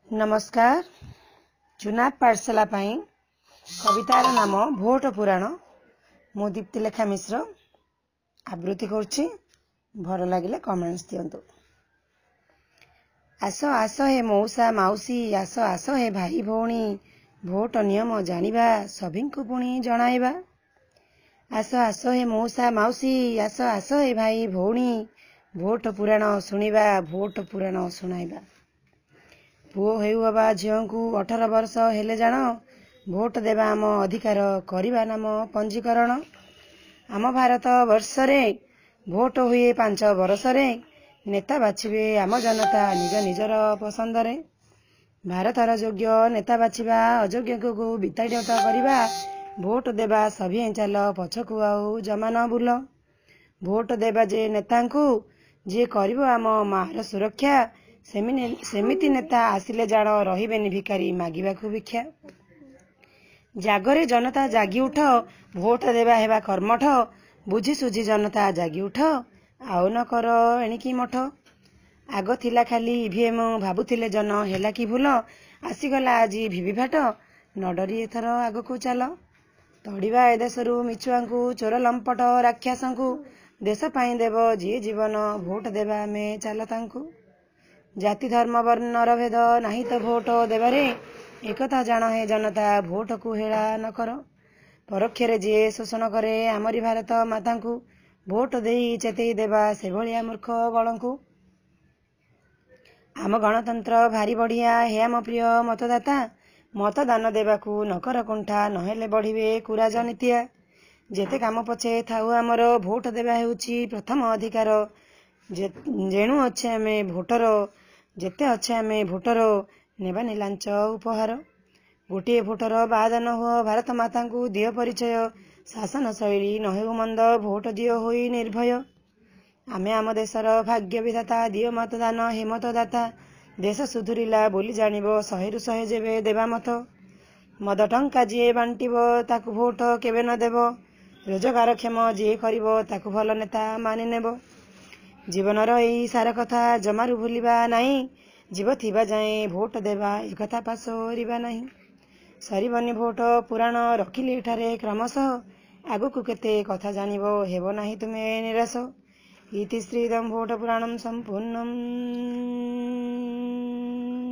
ନମସ୍କାର। ଚୁନାବ ପାଠଶାଲା ପାଇଁ କବିତାର ନାମ ଭୋଟ ପୁରାଣ। ମୁଁ ଦୀପ୍ତିଲେଖା ମିଶ୍ର ଆବୃତ୍ତି କରୁଛି। ଭଲ ଲାଗିଲେ କମେଣ୍ଟସ୍ ଦିଅନ୍ତୁ। ଆସ ଆସ ହେ ମଉସା ମାଉସୀ, ଆସ ଆସ ହେ ଭାଇ ଭଉଣୀ, ଭୋଟ ନିୟମ ଜାଣିବା, ସଭିଙ୍କୁ ପୁଣି ଜଣାଇବା। ଆସ ଆସ ହେ ମଉସା ମାଉସୀ, ଆସ ଆସ ହେ ଭାଇ ଭଉଣୀ, ଭୋଟ ପୁରାଣ ଶୁଣିବା, ଭୋଟ ପୁରାଣ ଶୁଣାଇବା। ପୁଅ ହେଉ ଅବା ଝିଅଙ୍କୁ 18 ବର୍ଷ ହେଲେ ଜାଣ, ଭୋଟ ଦେବା ଆମ ଅଧିକାର, କରିବା ନାମ ପଞ୍ଜୀକରଣ। ଆମ ଭାରତ ବର୍ଷରେ ଭୋଟ ହୁଏ 5 ବରଷରେ, ନେତା ବାଛିବେ ଆମ ଜନତା ନିଜ ନିଜର ପସନ୍ଦରେ। ଭାରତର ଯୋଗ୍ୟ ନେତା ବାଛିବା, ଅଯୋଗ୍ୟକୁ ବିତାଡ଼ିତ କରିବା, ଭୋଟ ଦେବା ସଭିଏଁ ଚାଲ, ପଛକୁ ଆଉ ଜମା ନ ବୁଲ। ଭୋଟ ଦେବା ଯେ ନେତାଙ୍କୁ, ଯିଏ କରିବ ଆମ ମାର ସୁରକ୍ଷା, ସେମିତି ନେତା ଆସିଲେ ଜାଣ, ରହିବେନି ଭିକାରୀ ମାଗିବାକୁ ଭିକ୍ଷା। ଜାଗରେ ଜନତା ଜାଗି ଉଠ, ଭୋଟ ଦେବା ହେବା କର୍ମଠ, ବୁଝି ସୁଝି ଜନତା ଜାଗି ଉଠ, ଆଉ ନ କର ଏଣିକି ମଠ। ଆଗ ଥିଲା ଖାଲି ଇଭିଏମ୍, ଭାବୁଥିଲେ ଜନ ହେଲା କି ଭୁଲ, ଆସିଗଲା ଆଜି ଭିଭିଭାଟ, ନ ଡରି ଏଥର ଆଗକୁ ଚାଲ। ତଡ଼ିବା ଏ ଦେଶରୁ ମିଛୁଆଙ୍କୁ, ଚୋର ଲମ୍ପଟ ରାକ୍ଷସଙ୍କୁ, ଦେଶ ପାଇଁ ଦେବ ଯିଏ ଜୀବନ, ଭୋଟ ଦେବା ଆମେ ଚାଲ ତାଙ୍କୁ। ଜାତି ଧର୍ମ ବର୍ଣ୍ଣର ଭେଦ ନାହିଁ ତ ଭୋଟ ଦେବାରେ, ଏକଥା ଜାଣ ହେ ଜନତା, ଭୋଟକୁ ହେଳା ନ କର। ପରୋକ୍ଷରେ ଯିଏ ଶୋଷଣ କରେ ଆମରି ଭାରତ ମାତାଙ୍କୁ, ଭୋଟ ଦେଇ ଚେତେଇ ଦେବା ସେଭଳିଆ ମୂର୍ଖ ଗଣଙ୍କୁ। ଆମ ଗଣତନ୍ତ୍ର ଭାରି ବଢ଼ିଆ ହେ ଆମ ପ୍ରିୟ ମତଦାତା, ମତଦାନ ଦେବାକୁ ନକର କୁଣ୍ଠା, ନହେଲେ ବଢ଼ିବେ କୁରାଜନୀତିଆ। ଯେତେ କାମ ପଛେ ଥାଉ ଆମର, ଭୋଟ ଦେବା ହେଉଛି ପ୍ରଥମ ଅଧିକାର, ଯେଣୁ ଅଛେ ଆମେ ଭୋଟର, ଯେତେ ଅଛେ ଆମେ ଭୋଟର, ନେବାନି ଲାଞ୍ଚ ଉପହାର। ଗୋଟିଏ ଭୋଟର ବାଦ ନ ହୁଅ, ଭାରତ ମାତାଙ୍କୁ ଦିଅ ପରିଚୟ, ଶାସନ ଶୈଳୀ ନ ହେଉ ମନ୍ଦ, ଭୋଟ ଦିଅ ହୋଇ ନିର୍ଭୟ। ଆମେ ଆମ ଦେଶର ଭାଗ୍ୟ ବିଧାତା, ଦିଅ ମତଦାନ ହେ ମତଦାତା, ଦେଶ ସୁଧୁରିଲା ବୋଲି ଜାଣିବ, 100ରୁ 100 ଯେବେ ଦେବା ମତ। ମଦ ଟଙ୍କା ଯିଏ ବାଣ୍ଟିବ ତାକୁ ଭୋଟ କେବେ ନ ଦେବ, ରୋଜଗାରକ୍ଷମ ଯିଏ କରିବ ତାକୁ ଭଲ ନେତା ମାନିନେବ। ଜୀବନର ଏଇ ସାର କଥା ଜମାରୁ ଭୁଲିବା ନାହିଁ, ଜୀବ ଥିବା ଯାଏଁ ଭୋଟ ଦେବା ଏକଥା ପାସୋରିବା ନାହିଁ। ସରିବନି ଭୋଟ ପୁରାଣ ରଖିଲି ଏଠାରେ କ୍ରମଶଃ, ଆଗକୁ କେତେ କଥା ଜାଣିବ ହେବ ନାହିଁ ତୁମେ ନିରାଶ। ଇତି ଶ୍ରୀଦಂ ଭୋଟ ପୁରାଣಂ ସମ୍ପୂର୍ଣ୍ଣମ୍।